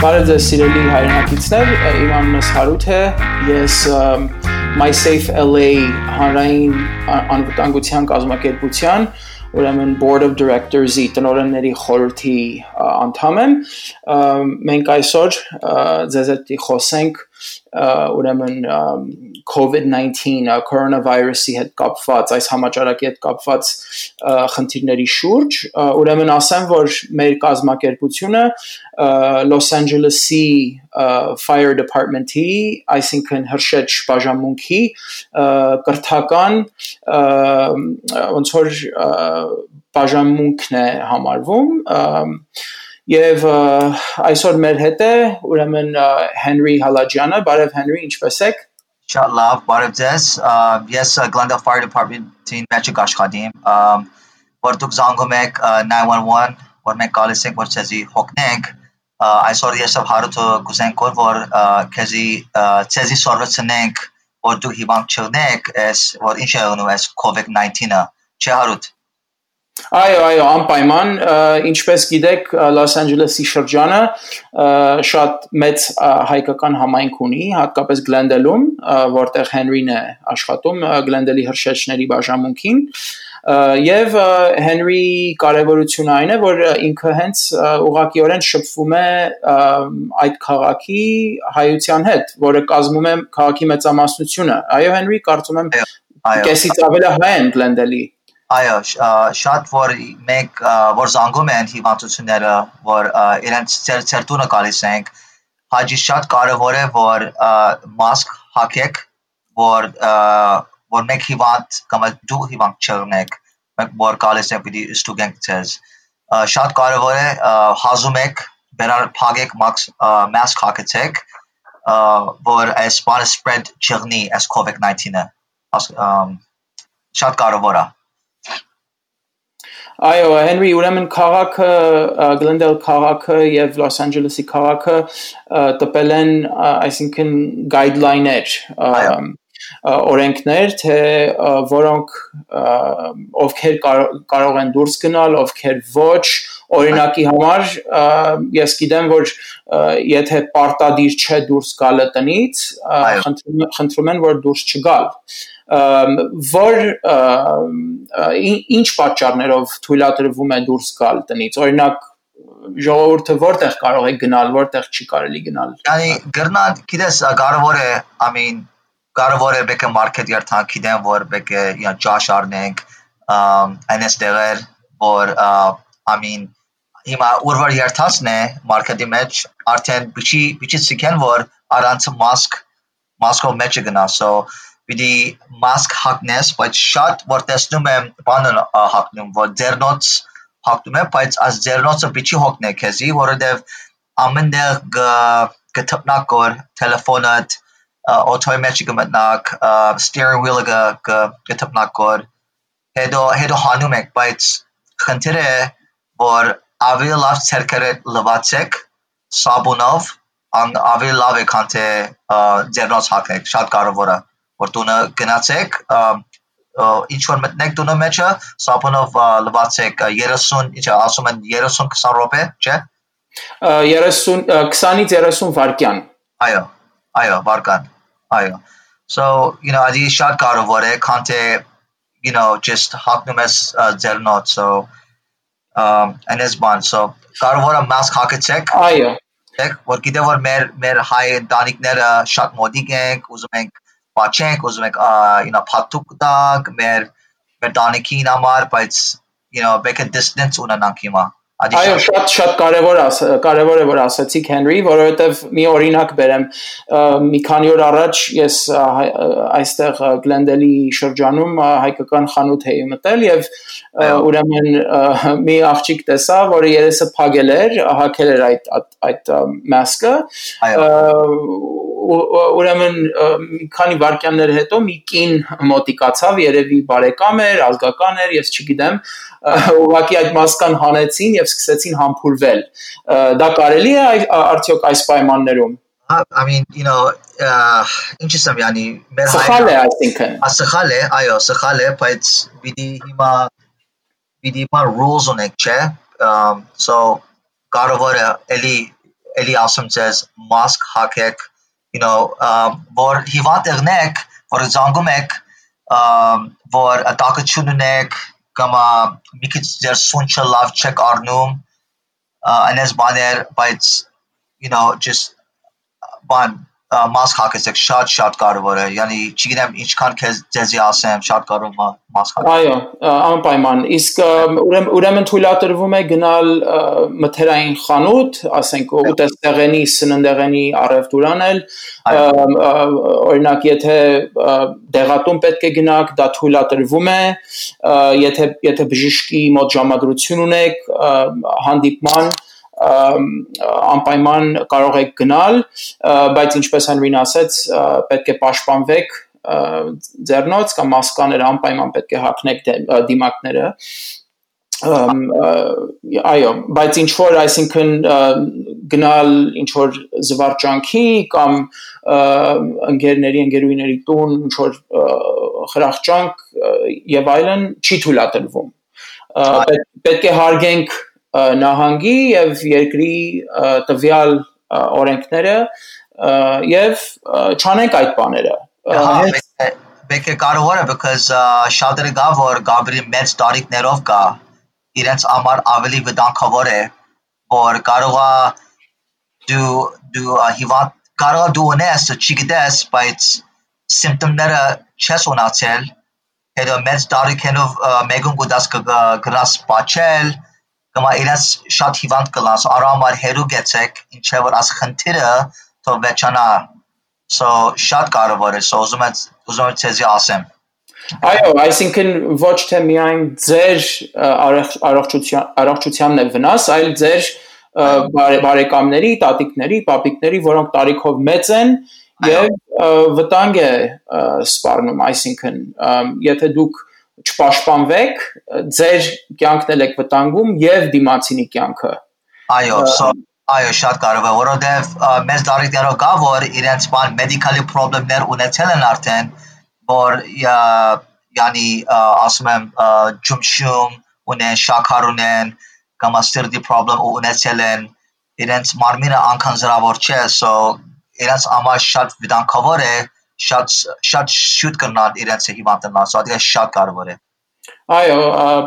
Բարև ձեզ սիրելի հայրենակիցներ, իմ անունը Հարութ է, ես MySafe LA հանրային անվտանգության կազմակերպության, ուրեմն Board of Directors-ի տնօրենների խորհրդի անդամ եմ, մենք այսօր ձեզ հետ խոսենք ուրեմն COVID-19 coronavirus-ի հետ կապված, այս համաճարակի հետ կապված խնդիրների շուրջ, ուրեմն ասեմ, որ մեր կազմակերպությունը Los Angeles-ի Fire Department-ի, այսինքն հրշեջ բաժանմունքի կրթական ոնց որ բաժանմունքն է համարվում Եվ այսօր մեր հետ է ուրեմն Henry Հալաջյանը, բարև Henry, ինչպե՞ս եք? Շատ լավ, բարև ձեզ, ես Glendale Fire Department-ին մեջ աշխատիմ, որ դուք զանգում եք 911, որ մենք գալիս ենք, որ ձեզի հոգնենք, այսօր ես և Հարութը կուզենք որ ձեզի սորվեցնենք, որ դուք հիվանդ չլինեք, որ ինչ է եղնում այս COVID-19-ը, չէ Հարութ? Այո, անպայման, ինչպես գիտեք, Los Angeles-ի շրջանը շատ մեծ հայկական համայնք ունի, հատկապես Glendale-ում, որտեղ Henry-ն է աշխատում, Glendale-ի հրշեջների բաժանմունքին, և Henry-ի կարևորությունը այն է, որ ինքը հենց ուղղակիորեն շփվում է այդ քաղաքի հայության հետ, որը կազմում է քաղաքի մեծամասնությունը, այո Henry, կարծում եմ կեսից ավել հայ են Glendale-ի Այո, շատ որ մենք որ զանգում են հիվանդությունները, որ իրենց ծեր տունը գալիս ենք, հաջի շատ կարևոր է, որ մասկ հագեք, որ մենք հիվանդ կամ դու հիվանդ չլինեք, մենք որ գալիս ենք պիտի ստուգենք ձեզ։ Շատ կարևոր է հազում եք, բերար փագեք, մասկ հագեցեք, որ այս բանը spread չլինի, այս COVID-19-ը, շատ կարևոր է։ Այո, Henry, ուրեմն քաղաքը, Glendale քաղաքը և Los Angeles-ի քաղաքը տպել են, այսինքն guideline-ներ, օրենքներ, թե որոնք ովքեր կարող են դուրս գնալ, ովքեր ոչ, օրինակի համար, ես գիտեմ, որ եթե պարտադիր չէ դուրս գալը տնից, խնդրում են, որ դուրս չգալ որ ինչ պատճառներով թույլատրվում է դուրս գալ տնից, օրինակ ժողովուրդը որտեղ կարող է գնալ, որտեղ չի կարելի գնալ։ Գնալ, գիտես, կարևոր է բեկը մարքետ երթանք, գիտեմ, որ բեկը ճաշ առնենք, այնես տեղեր, որ հիմա ուրվար երթացն է մարքետի մեջ, արդեն բիչի սիքեն, որ առանց մասկով մեջը գնա, պիտի մասկ հագնես, բայց շատ որ տեսնում եմ բանն հագնում, որ ձեռնոց հագնում եմ, բայց այս ձեռնոցը պիտի հոգնե քեզի, որովհետև ամեն տեղ կթփնակ որ տելեֆոնդ, օթոյի մեջ կմտնակ, steering wheel-ը կթփնակ որ, հետո հանում եք, բայց խնդիրը է, որ ավելի լավ ցերկերը լվացեք սաբունով, ավելի լավ է, քան թե ձեռնոց հագնեք, շատ կարևոր է։ Որ տունը գնացեք, ինչ-որ մտնեք տունը մեջը, սապոնով լվացեք 30, ասում են 30-20 րոպե, չէ? 20-ից 30 վայրկյան։ Այո, վայրկյան, այո։ Ադի շատ կարևոր է, քան թե, just հագնում ես ձեռնոց, այնես բան, կարևոր է մասկ հագեցեք։ Այո։ Որ գիտեմ, որ մեր հայ ընտանիքները շատ մոդիկ ենք, ուզում ենք Պաչենք, ուզում եք պատուկ տակ, մեր տանիքին համար, բայց բեկը distance ունենանք հիմա։ Այո, շատ կարևոր է, որ ասացիք Henry, որովհետև մի օրինակ բերեմ, մի քանի օր առաջ ես այստեղ Glendale-ի շրջանում հայկական խանութ էի մտել և ուրեմն մի աղջիկ տեսա, որը երեսը փակել էր, հագել էր այդ մասկը, ուրեմն մի քանի վայրկյաններ հետո մի կին մոտիկացավ, երևի բարեկամ էր, ազգական էր, ես չգիտեմ, ուղղակի այդ մասկան հանեցին և սկսեցին համբուրվել։ Դա կարելի է արդյոք այս պայմաններում։ Ինչ եմ յանի Սխալ է այսինքն։ Սխալ է, այո, սխալ է, բայց պիտի հիմա rules ունենք, չէ։ Կարևոր է էլի էլի ասում ձեզ mask հագեք, որ հիվանդ եղնեք, որ զանգում եք, որ տակություն ունեք, կամ մի քիչ ձեր սունչը լավ չեք առնում, այնպես բաներ, բայց just mask հագեցեք շատ կարևոր է, yani չգիտեմ ինչքան ձեզի ասեմ, շատ կարևոր mask հագեք։ Այո, անպայման, իսկ ուրեմն թույլատրվում է գնալ մթերային խանութ, ասենք ուտեստեղենի, սննդեղենի առևտուր անել, օրինակ եթե դեղատուն պետք է գնաք, դա թույլատրվում է, եթե բժշկի մոտ ժամադրություն ունեք, հանդիպման անպայման կարող եք գնալ, բայց ինչպես Հենրին ասեց, պետք է պաշտպանվեք ձեռնոց կամ մասկաները անպայման պետք է հագնեք դիմակները, այո, բայց ինչ որ, այսինքն գնալ ինչ որ զվարճանքի կամ ընկերուհիների տուն, ինչ որ խրախճանք եւ այլն չի թույլատրվում, պետք է հարգենք նահանգի եւ երկրի տվյալ օրենքները եւ չանենք այդ բաները։ Պետք է կարևոր է, because շատերը գա որ գաբրի մեծ տարիքներով գա, իրենց համար ավելի վտանգավոր է, որ կարողա դու հիվանդ կարողա դու ունես, չգիտես, բայց սիմպտոմները չես ունացել, հետո մեծ տարիքերով մեկում գուտած գրաս բաչել, կամ իրենց շատ հիվանդ կլաս, արամար հերու գեցեք, ինչե որ աս խնդիրը թող վեճանա, so շատ կարևոր է, so ուզում եմ ցեզի ասեմ։ Այո, այսինքն ոչ թե միայն ձեր առողջությանն է վնաս, այլ ձեր բարեկամների, տատիկների, պապիկների, որոնք տարիքով մեծ են եւ վտանգ է սպառնում, այսինքն եթե դուք չպաշտպանվեք, ձեր կյանքն եք վտանգում եւ դիմացինի կյանքը։ Այո, շատ կարևոր է, որովհետեւ մեծ տարիքներով կա որ իրենց մեդիկալի խնդիրներ ունեցել են արդեն, որ yani ասում եմ ջումշում ունեն, շաքար ունեն, կամ սիրտի խնդիր ունեցել են, իրենց մարմինը անքանզրավոր չէ, so իրենց համար շատ վտանգավոր է, շատ շուտ կնալ իրենց հիվանդանալ, so դա շատ կարևոր է։ Այո,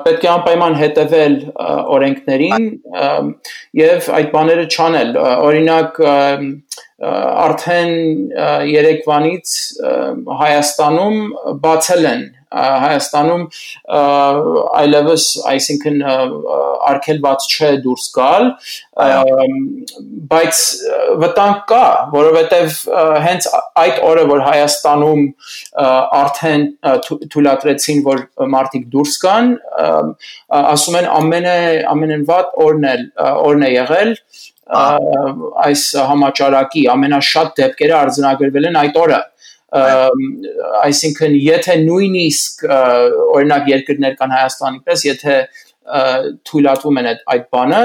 պետք է անպայման հետևել օրենքներին եւ այդ բաները չանել, օրինակ արդեն երեկվանից Հայաստանում բացել են Հայաստանում այլևս, այսինքն արգելված չէ դուրս գալ, բայց վտանգ կա, որովհետև հենց այդ օրը, որ Հայաստանում արդեն թույլատրեցին, որ մարդիկ դուրս գան, ասում են ամենավատ օրն է եղել այս համաճարակի, ամենաշատ դեպքերը արձանագրվել են այդ օրը, այսինքն եթե նույնիսկ օրինակ երկրներ կան Հայաստանի պես, եթե թույլատվում են այդ բանը,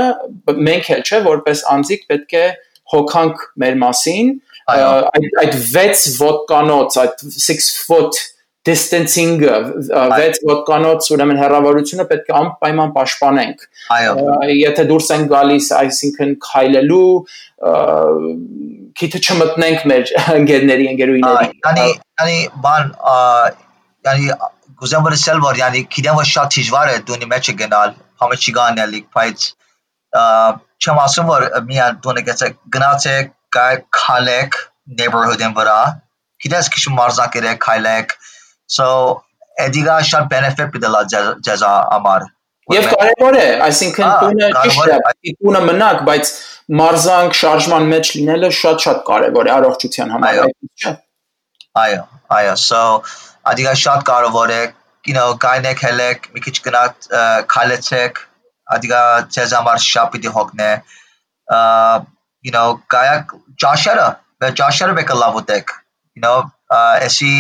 մենք էլ չէ, որպես անձիկ պետք է հոգանք մեր մասին, այդ 6 ոտկանոց, այդ 6 foot distancing-ը, 6 ոտկանոց ուրեմն հեռավորությունը պետք է անպայման պաշտպանենք, եթե դուրս են գալիս, այսինքն քայլելու, քիթը չմտնենք մեր ընկերուհիների։ Yani գուզեմ որ ասել որ yani գիտեմ որ շատ դժվար է դունի մեջ գնալ, համը չի գանել, բայց չեմ ասում որ միան դունը գնացեք, քայլեք neighborhood-ին վրա, գիտես քիչ մարզակերեք, քայլեք, so էդիգա շատ benefit պիտի ձեզ համար։ Եվ կարևոր է, այսինքն տունը ճիշտ է, տունը մնաք, բայց մարզանք շարժման մեջ լինելը շատ կարևոր է առողջության համար, չէ՞։ Այո, so ադիգա շատ կարևոր է, գայնեք հելեք, մի քիչ գնաք քայլեցեք, ադիգա ձեզ համար շատ պիտի հոգնե, գայակ ճաշերը բեկը լավ ուտեք, էսի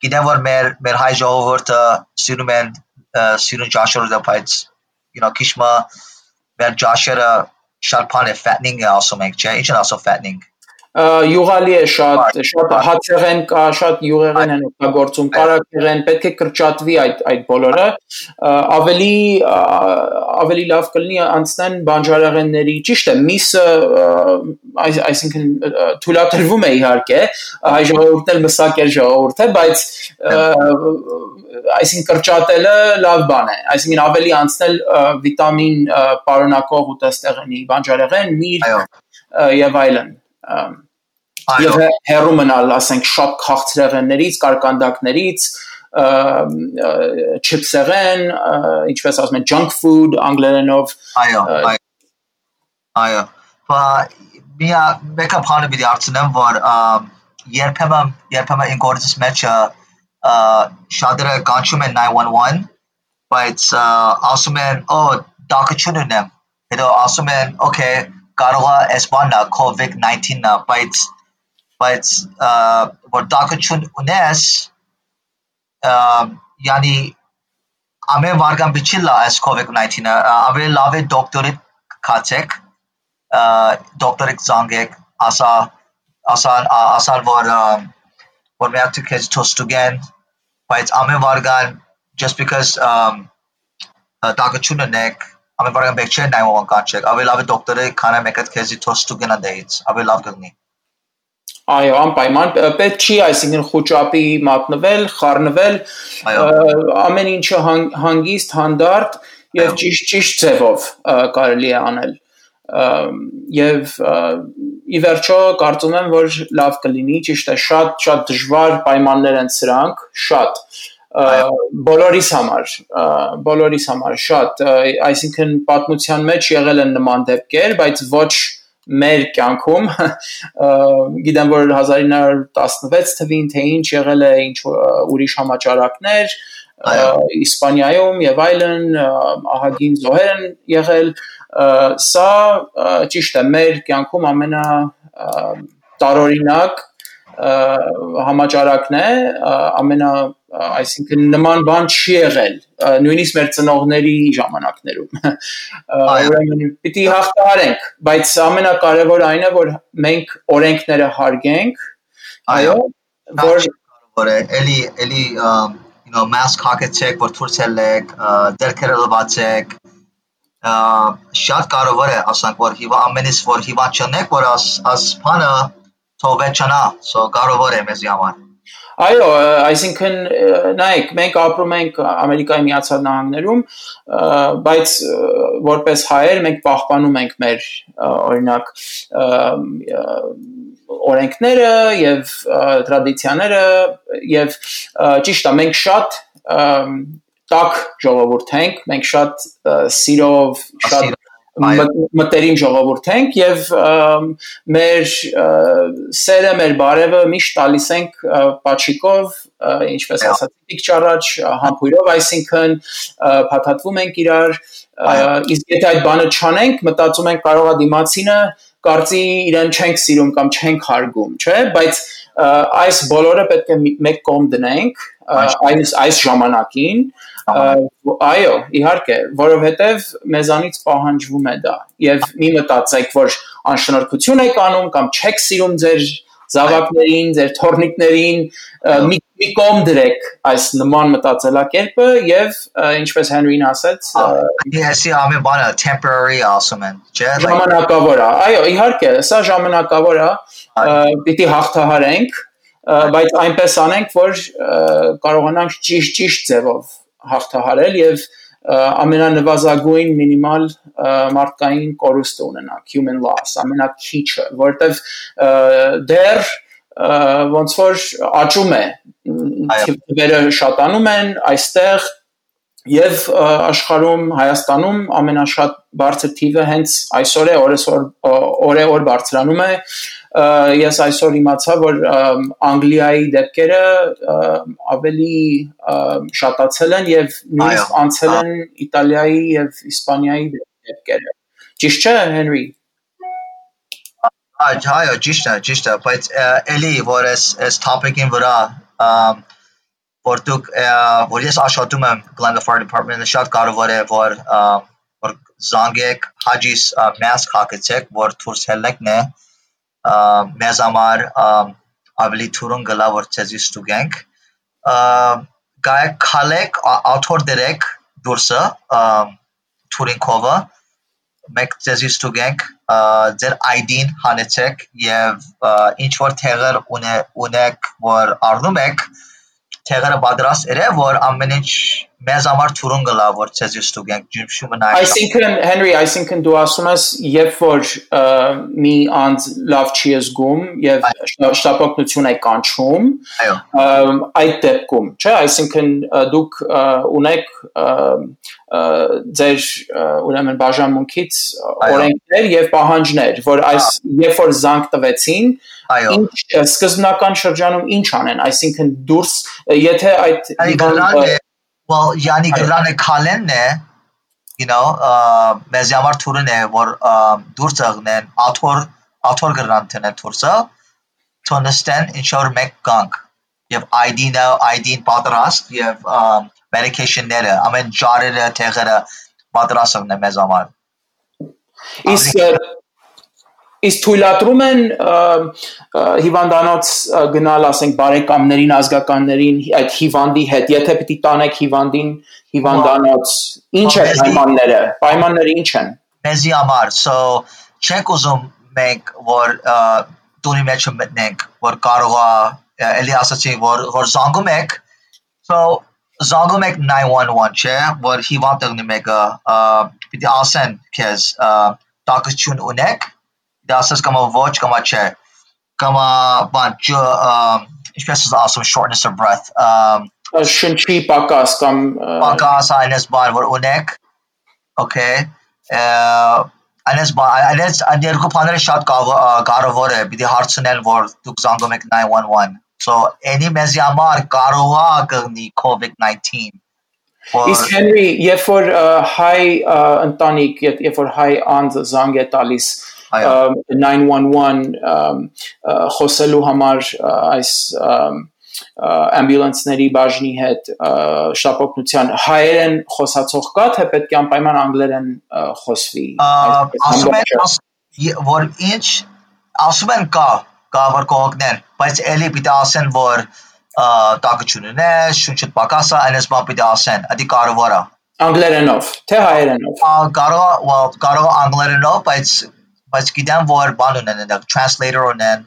գիտեմ որ մեր հայ ժողովուրդը սիրուն ճաշեր ուտել, բայց քիչ մեր ճաշերը շատ բան է fattening է ասում ենք, չէ՞, ինչ են ասում fattening։ յուղալի է շատ հացեղեն կա, շատ յուղեղեն են օգտագործում, կարակեղեն, պետք է կրճատվի այդ բոլորը, ավելի լավ կլինի անցնեն բանջարեղենների, ճիշտ է, միսը, այսինքն թույլատրվում է իհարկե, հայ ժողովուրդն էլ մսակեր ժողովուրդ է, բայց այսինքն կրճատելը լավ բան է, այսինքն ավելի անցնել վիտամին պարունակող ուտեստեղենի, բանջարեղեն, միրգ եւ այլն եւ հեռու մնալ, ասենք, շատ քաղցրեղեններից, կարկանդակներից, չիփսեղեն, ինչպես ասում են, junk food անգլերենով։ Այո, մեկը բանը պիտի հարցնեմ, որ երբեմն ինգորձის մեջը շատերը կանչում են 911, բայց ասում են, դակություն ունեմ, հետո ասում են, okay, կարող է այս բանն COVID-19-ը, բայց որ դակություն ունես, yani ամեն վարգան բիչի լա այս COVID-19-ը, ավելի լավ է դոկտորի կացեք, դոկտորի զանգեք, ասան որ միակ თუ քեզ թոստուգեն, բայց ամեն վարգան just because դակություն ունեք, ամեն վարգան բեք չէ 911 կանչեք, ավելի լավ է դոկտորի քանը մեկը քեզի թոստուգեն անդեից, ավելի լավ կլինի։ Այո, անպայման, պետք չի, այսինքն խուճապի մատնվել, խառնվել, ամեն ինչը հանգիստ, հանդարտ եւ ճիշտ ձևով կարելի է անել։ Եվ ի վերջո կարծում եմ, որ լավ կլինի, ճիշտ է, շատ դժվար պայմաններ են սրանք, շատ բոլորիս համար շատ, այսինքն պատմության մեջ եղել են նման դեպքեր, բայց ոչ մեր կյանքում, գիտեմ, որ 1916 թվին, թե ինչ եղել է ինչ ուրիշ համաճարակներ, Իսպանիայում եւ այլն, ահագին զոհեր են եղել, սա ճիշտ է, մեր կյանքում ամենա տարօրինակ համաճարակն է, այսինքն նման բան չի եղել, նույնիսկ մեր ծնողների ժամանակներում, ուրեմն պիտի հաղթահարենք, բայց ամենակարևորը այն է, որ մենք օրենքները հարգենք, այո, որ էլի mask հագեցեք, որ դուրս ելեք, դերքերը լվացեք, շատ կարևոր է, ասենք, որ ամենից որ հիվանդ չնեք, որ աս բանը թողվեցնա, կարևոր է մեզի համար։ Այո, այսինքն նայեք, մենք ապրում ենք Ամերիկայի Միացյալ Նահանգներում, բայց որպես հայեր մենք պահպանում ենք մեր օրինակ օրենքները եւ տրադիցիաները եւ ճիշտ է, մենք շատ տաք ժողովուրդ ենք, մենք շատ սիրով, շատ մտերիմ ժողովուրդ ենք եւ մեր սերը, մեր բարևը միշտ տալիս ենք պաչիկով, ինչպես ասացիք ճառաջ, համբույրով, այսինքն փաթաթվում ենք իրար, իսկ եթե այդ բանը չանենք, մտածում ենք կարող է դիմացինը կարծի իրեն չենք սիրում կամ չենք հարգում, չէ՞, բայց այս բոլորը պետք է մեկ կողմ դնենք այս ժամանակին, այո, իհարկե, որովհետև մեզանից պահանջվում է դա, եւ մի մտածեք, որ անշնորհքություն եք անում կամ չեք սիրում ձեր զավակներին, ձեր թորնիկներին, մի կողմ դրեք այս նման մտածելակերպը եւ ինչպես Հենրին ասաց, Այսի ամեն բանը temporary ասում են, չէ՞, ժամանակավոր է, այո, իհարկե, սա ժամանակավոր է, պիտի հաղթահարենք, բայց այնպես անենք, որ կարողանանք ճիշտ ձևով հաղթահարել եւ ամենանվազագույն մինիմալ մարդկային կորուստը ունենանք, human loss, ամենաքիչը, որտեվ դեռ ոնց որ աճում է, թվերը շատանում են այստեղ եւ աշխարհում Հայաստանում ամենաշատ բարձր թիվը հենց այսօր է, օրը բարձրանում է, ես այսօր իմացա, որ Անգլիայի դեպքերը ավելի շատացել են եւ նույնիսկ անցել են Իտալիայի եւ Իսպանիայի դեպքերը։ Ճիշտ չէ, Հենրի։ Այո, ճիշտ է, բայց էլի որ այս topic-ին վրա որ ես աշխատում եմ Glendale Fire Department-ը շատ կարևոր է որ զանգեք հաջիս mask հագեցեք որ դուրս ելնեք մեզ համար ավելի թուրուն գլա որ ցեզի ստուգենք գայք քալեք author դերեք դուրսը թուրինքովը մեկ ցեզի ստուգենք ձեր ID-ն հանեցեք եւ ինչ որ թեղեր ունեք որ առնում եք թեղերը պատրաստ երե որ ամեն ինչ մեզ համար թուրուն գլա որ ցեզի ստուգենք ջիմշումը նայ Այսինքն Henry այսինքն դու ասում ես երբ որ մի անձ լավ չի զգում եւ շտապօգնություն է կանչում այդ դեպքում չէ այսինքն դուք ունեք ձեր ուրեմն բաժանմունքից օրենքներ եւ պահանջներ որ այս երբ որ զանգ տվեցին ինչ սկզբնական շրջանում ինչ անեն այսինքն դուրս եթե այդ well yani գրանը քալենն է you know մեզ համար թուրն է որ դուրս աղնեն author գրան տնեն դուրսը to understand ensure մեկ կանք եւ ID-ն պատրաստ եւ medication-ները ամեն ջարերը թեղերը պատրաստն է մեզ համար Իսկ թույլատրում են հիվանդանոց գնալ ասենք բարեկամներին ազգականներին այդ հիվանդի հետ եթե պիտի տանեք հիվանդին հիվանդանոց ինչ է պայմանները ինչ են մեզի համար so չենք ուզում մենք որ տունի մեջ մտնենք որ կարող է էլի ասացի որ զանգում եք so զանգում եք 911 չէ որ հիվանդ եղնի մեկը պիտի ասեն քեզ տակություն ունեք Դասս կամա ոչ կամա չէ կամա բան ինչպես ասում shortness of breath շնչի պակաս կամ պակաս այնպես բան որ ունեք okay այնպես բան այնպես երկու բաները շատ կարևոր է պիտի հարցնել որ դուք զանգում եք 911 so any մեզի համար կարող է կգնի COVID-19 Իսկ Henry երբ որ հայ ընտանիք երբ որ հայ անձ զանգ է տալիս 911 խոսելու համար այս ամբյուլանսների բաժնի հետ շտապօգնության հայերեն խոսացող կա թե պետք է անպայման անգլերեն խոսվի ասում են որ ինչ ասում են կա որ կողքներ բայց էլի պիտի ասեն որ տակություն ունե շունչը պակասա այնպես բան պիտի ասեն դա կարևոր է անգլերենով թե հայերենով կարող անգլերենով բայց գիտեմ որ բան ունեն translator ունեն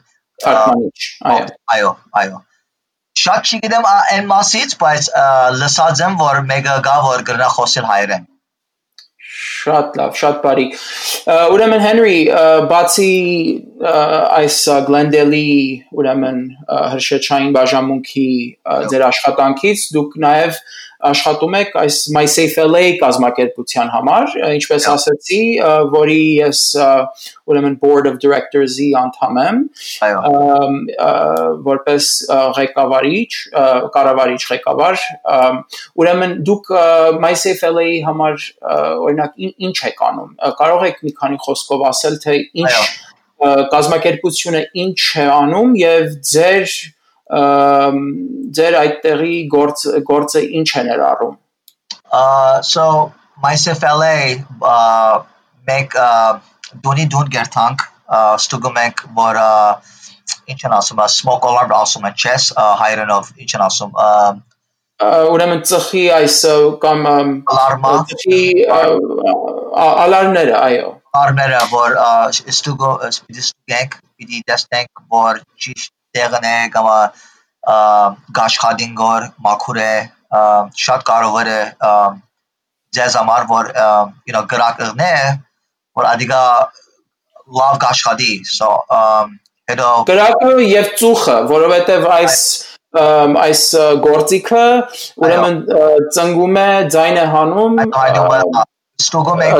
այո շատ չգիտեմ այն մասից բայց լսած եմ որ մեկը գա որ գրնա խոսել հայերեն շատ լավ շատ բարի ուրեմն Henry բացի այս Glendale-ի ուրեմն հրշեջային բաժանմունքի ձեր աշխատանքից դուք նաև աշխատում եք այս My Safe LA կազմակերպության համար, ինչպես ասացի, որի ես ուրեմն Board of Directors-ի անդամ եմ, որպես ղեկավարիչ, կառավարիչ ղեկավար, ուրեմն դուք My Safe LA-ի համար օրինակ ինչ եք անում, կարող եք մի քանի խոսքով ասել, թե ինչ կազմակերպությունը ինչ է անում եւ ձեր այդտեղի գործը ինչ է ներառում So My Safe LA մեկ դուն գերտանք ստուգում ենք որ ինչ են ասում smoke alarm ասում են chess հայերենով ինչ են ասում ուրեմն ծխի այս կամ ալարմները այո ալարմները որ ստուգենք պիտի տեսնենք որ ճիշտ տեղն է կամ գաշխադին գոր մաքուր է շատ կարևոր է ձեզ համար որ գրակն է որ ադիգա լավ գաշխադի so հետո գրակը եւ ծուխը որովհետեւ այս գործիքը ուրեմն ծնգում է ձայնը հանում ստուգում է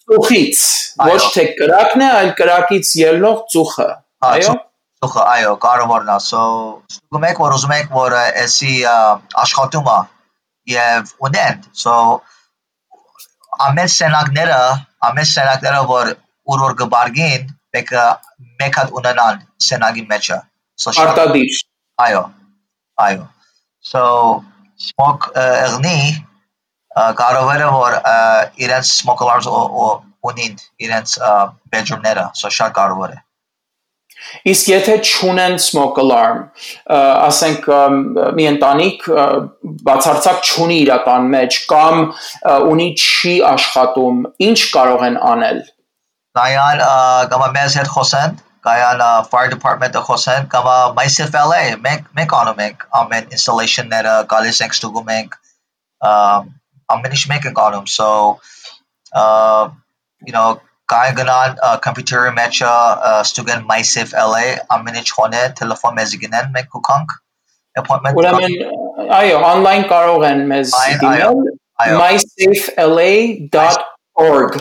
ծուխից ոչ թե գրակն է այլ գրակից ելնող ծուխը այո այո կարևորն է so ստուգում եք որ ուզում եք որ էսի աշխատումը եւ ունեն so ամեն սենակները որ որ գբարգին մեկ հատ ունենան սենագի մեջը so արտադիր այո so smoke եղնի կարևոր է որ իրենց smoke alarms ունին իրենց bedroom-ները so շատ կարևոր է Իսկ եթե չունեն smoke alarm, ասենք մի ընտանիք բացարձակ չունի իր տան մեջ կամ ունի չի աշխատում, ինչ կարող են անել։ Կայան կամ մեզ հետ խոսեն, կայան fire department-ը խոսեն, կամ myself LA, մենք անում ենք ամեն installation-ները, գալիս ենք ստուգում ենք, ամեն ինչ մենք ենք անում, so կային գնան computer-ի մեջ ստուգեն myself LA, ամեն ինչ խոնե, տելեֆոն մեզ գնեն, մենք կուքանք appointment։ Ուրեմն այո, online կարող են մեզ դիմել mysafelA.org,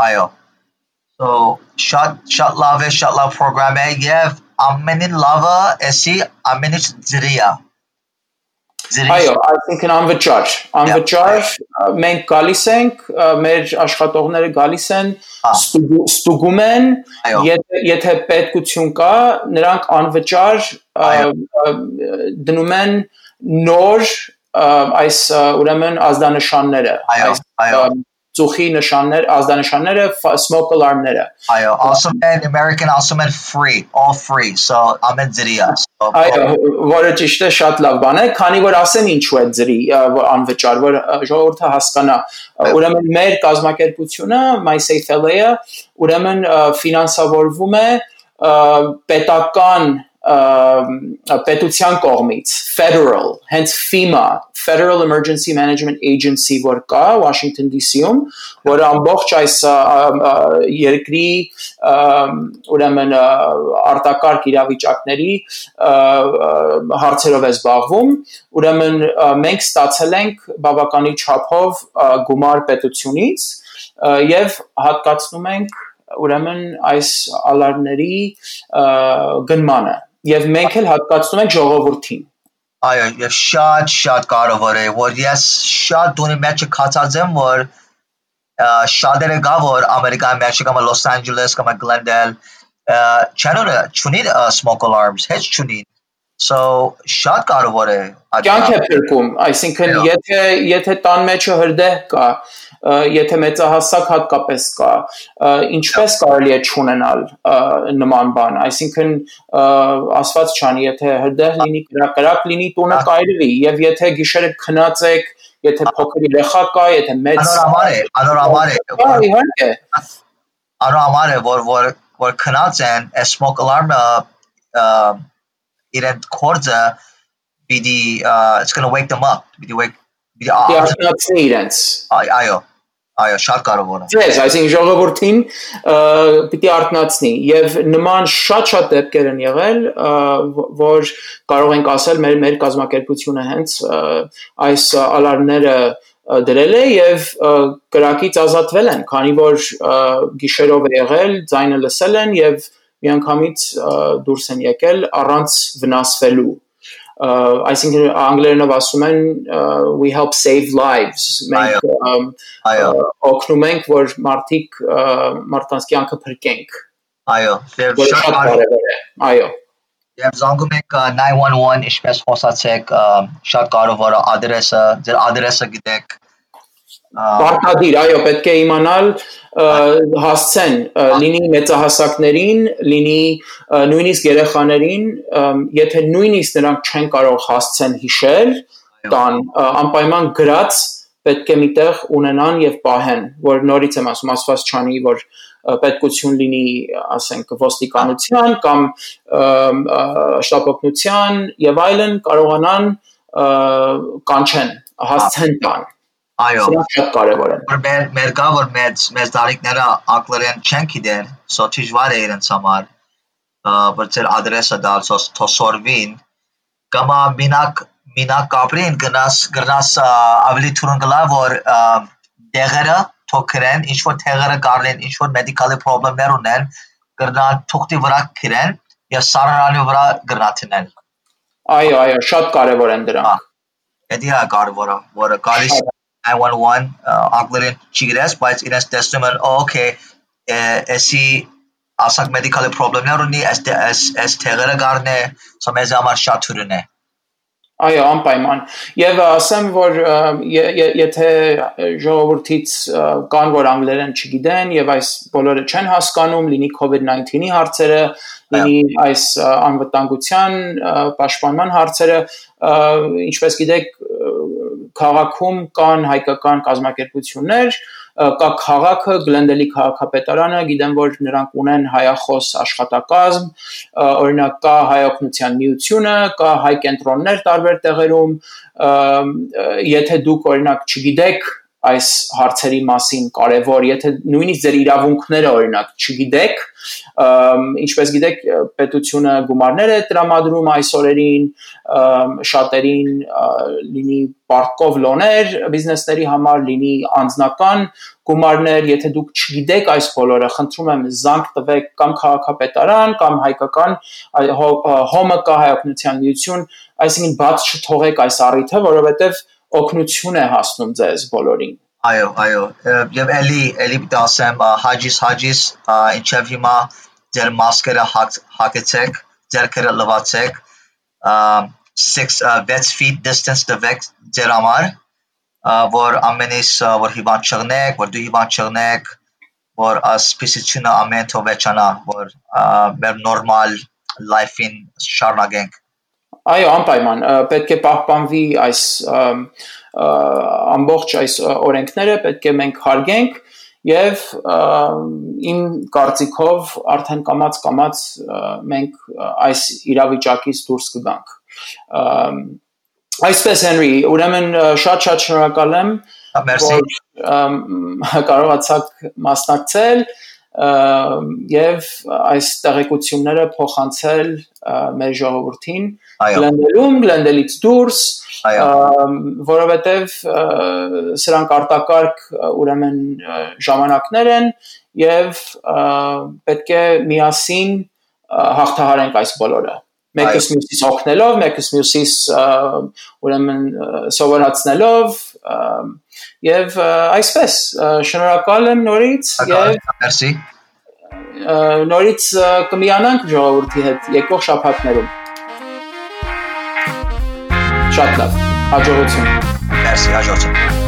այո։ So շատ լավ է, շատ լավ պրոգրամ է եւ ամենին լավը էսի ամեն ինչ ձրի է։ Այո, այսինքն անվճար մենք գալիս ենք, մեր աշխատողները գալիս են, ստուգում են, եթե պետքություն կա, նրանք անվճար դնում են նոր այս ուրեմն ազդանշանները, ծուխի նշաններ, ազդանշանները, smoke alarm-ները։ Այո, ասում են American ասում են free, all free, so ամեն ձրի է։ Այո, որը ճիշտ է, շատ լավ բան է, քանի որ ասեմ ինչու է ձրի անվճար, որ ժողովուրդը հասկանա։ Ուրեմն մեր կազմակերպությունը MySafeLA-ը ուրեմն ֆինանսավորվում է պետության կողմից, federal, հենց FEMA, Federal Emergency Management Agency, որ կա Washington DC-ում, որը ամբողջ այս երկրի ուրեմն արտակարգ իրավիճակների հարցերով է զբաղվում, ուրեմն մենք ստացել ենք բավականի չափով գումար պետությունից եւ հատկացնում ենք ուրեմն այս ալարմների գնմանը եւ մենք էլ հատկացնում ենք ժողովրդին։ Այո, եւ շատ կարևոր է, որ ես շատ դունի մեջ կացած եմ, որ շատերը գա, որ Ամերիկայի մեջ կամ Los Angeles կամ Glendale չունի smoke alarms, heç չունի։ So շատ կարևոր է։ Կյանք է փրկում, այսինքն եթե տան մեջը հրդեհ կա, եթե մեծահասակ հատկապես կա, ինչպես կարելի է չունենալ նման բան, այսինքն ասված չանի, եթե հրդեհ լինի, կրակ լինի, տունը կայրվի, եւ եթե գիշերը քնած եք, եթե փոքր երեխա կա, եթե մեծ անորմալ է, որ քնած են, smoke alarm-ը իրեն կորձը պիտի it's going to wake them up, պիտի արթնացնի իրենց։ Այո, շատ կարևոր է։ Yes, այսինքն ժողովրդին պիտի արթնացնի եւ նման շատ դեպքեր են եղել, որ կարող ենք ասել մեր կազմակերպությունը հենց այս ալարմները դրել է եւ կրակից ազատվել են, քանի որ գիշերով է եղել, ձայնը լսել են եւ միանգամից դուրս են եկել առանց վնասվելու։ Այսինքն անգլերենով ասում են we help save lives, մենք օգնում ենք, որ մարդկանց կյանքը փրկենք։ Այո, շատ կարևոր է։ Այո։ Եվ զանգում եք 911, ինչպես խոսացեք, շատ կարևոր է ադրեսը, ձեր ադրեսը գիտեք։ Պարտադիր, այո, պետք է իմանալ հասցեն, լինի մեծահասակներին, լինի նույնիսկ երեխաներին, եթե նույնիսկ նրանք չեն կարող հասցեն հիշել, տան անպայման գրած պետք է միտեղ ունենան եւ պահեն, որ նորից եմ ասում, ասված չանի, որ պետքություն լինի, ասենք, ոստիկանության կամ շտապօգնության եւ այլն կարողանան կանչեն, հասցեն տան։ Այո, շատ կարևոր է։ Մեր կա, որ մեծ տարիքները անգլերեն չեն գիտեն, so դժվար է իրենց համար, որ ձեր ադրեսը դալ, թոսորվին, կամ մինակ կապրին գրնաս ավելի թուրն գլա, որ դեղերը թոքրեն, ինչ-որ թեղերը կարլեն, ինչ-որ մեդիկալի պրոբլեմներ ունեն, գրնան թուղթի վրա կրեն և սարարանի վրա գրնաթնեն։ Այո, շատ կարևոր են դրանք։ Դա կարևոր է, որը գալիս 911 անգլերեն չգիտես, բայց իրենց տեսնում են, okay, էսի ասակ մեդիկալի պրոբլեմներ ունի, այս թեղերը գարն է, so մեզ համար շատ թուրն է։ Այո, անպայման։ Եվ ասեմ, որ եթե ժողովրդից կան, որ անգլերեն չգիտեն եւ այս բոլորը չեն հասկանում, լինի COVID-19-ի հարցերը, լինի այս անվտանգության պաշտպանման հարցերը, ինչպես գիտեք, քաղաքում կան հայկական կազմակերպություններ, կա քաղաքը, Գլենդելի քաղաքապետարանը, գիտեմ, որ նրանք ունեն հայախոս աշխատակազմ, օրինակ կա հայօգնության միությունը, կա հայ կենտրոններ տարբեր տեղերում, եթե դուք օրինակ չգիտեք այս հարցերի մասին կարևոր, եթե նույնիսկ ձեր իրավունքները օրինակ չգիտեք, ինչպես գիտեք, պետությունը գումարներ է տրամադրում այս օրերին, շատերին լինի պարտքով լոներ բիզնեսների համար, լինի անձնական գումարներ, եթե դուք չգիտեք այս բոլորը, խնդրում եմ զանգ տվեք կամ քաղաքապետարան, կամ հայկական հոմը կա հայօգնության միություն, այսինքն բաց չթողեք այս առիթը, որովհետև օգնություն է հասնում ձեզ բոլորին։ Այո, եւ էլի դասեմ հաջիս, ինչեւ հիմա ձեր մասկերը հագեցեք, ձերքերը լվացեք, 6 feet distance տվեք ձեր համար, որ ամենից որ հիվանդ չեղնեք, որ դու հիվանդ չեղնեք, որ սպիսությունը ամեն թողվեչանա, որ մեր նորմալ life-in շարունակենք։ Այո, անպայման, պետք է պահպանվի այս ամբողջ այս օրենքները, պետք է մենք հարգենք եւ իմ կարծիքով արդեն կամաց մենք այս իրավիճակից դուրս կգանք։ Այսպես Հենրի, ուրեմն շատ շնորհակալ եմ, որ կարողացաք մասնակցել եւ այս տեղեկությունները փոխանցել մեր ժողովրդին Գլենդելից դուրս, որովհետև սրանք արտակարգ ուրեմն ժամանակներ են եւ պետք է միասին հաղթահարենք այս բոլորը։ Մեկս մյուսից օգնելով, մեկս մյուսից ուրեմն սովորացնելով եւ այսպես շնորհակալ եմ նորից եւ Մերսի։ Նորից կմիանանք ժողովրդի հետ եկող շաբաթներում։ Շատ լավ, հաջողություն։ Մերսի, հաջողություն։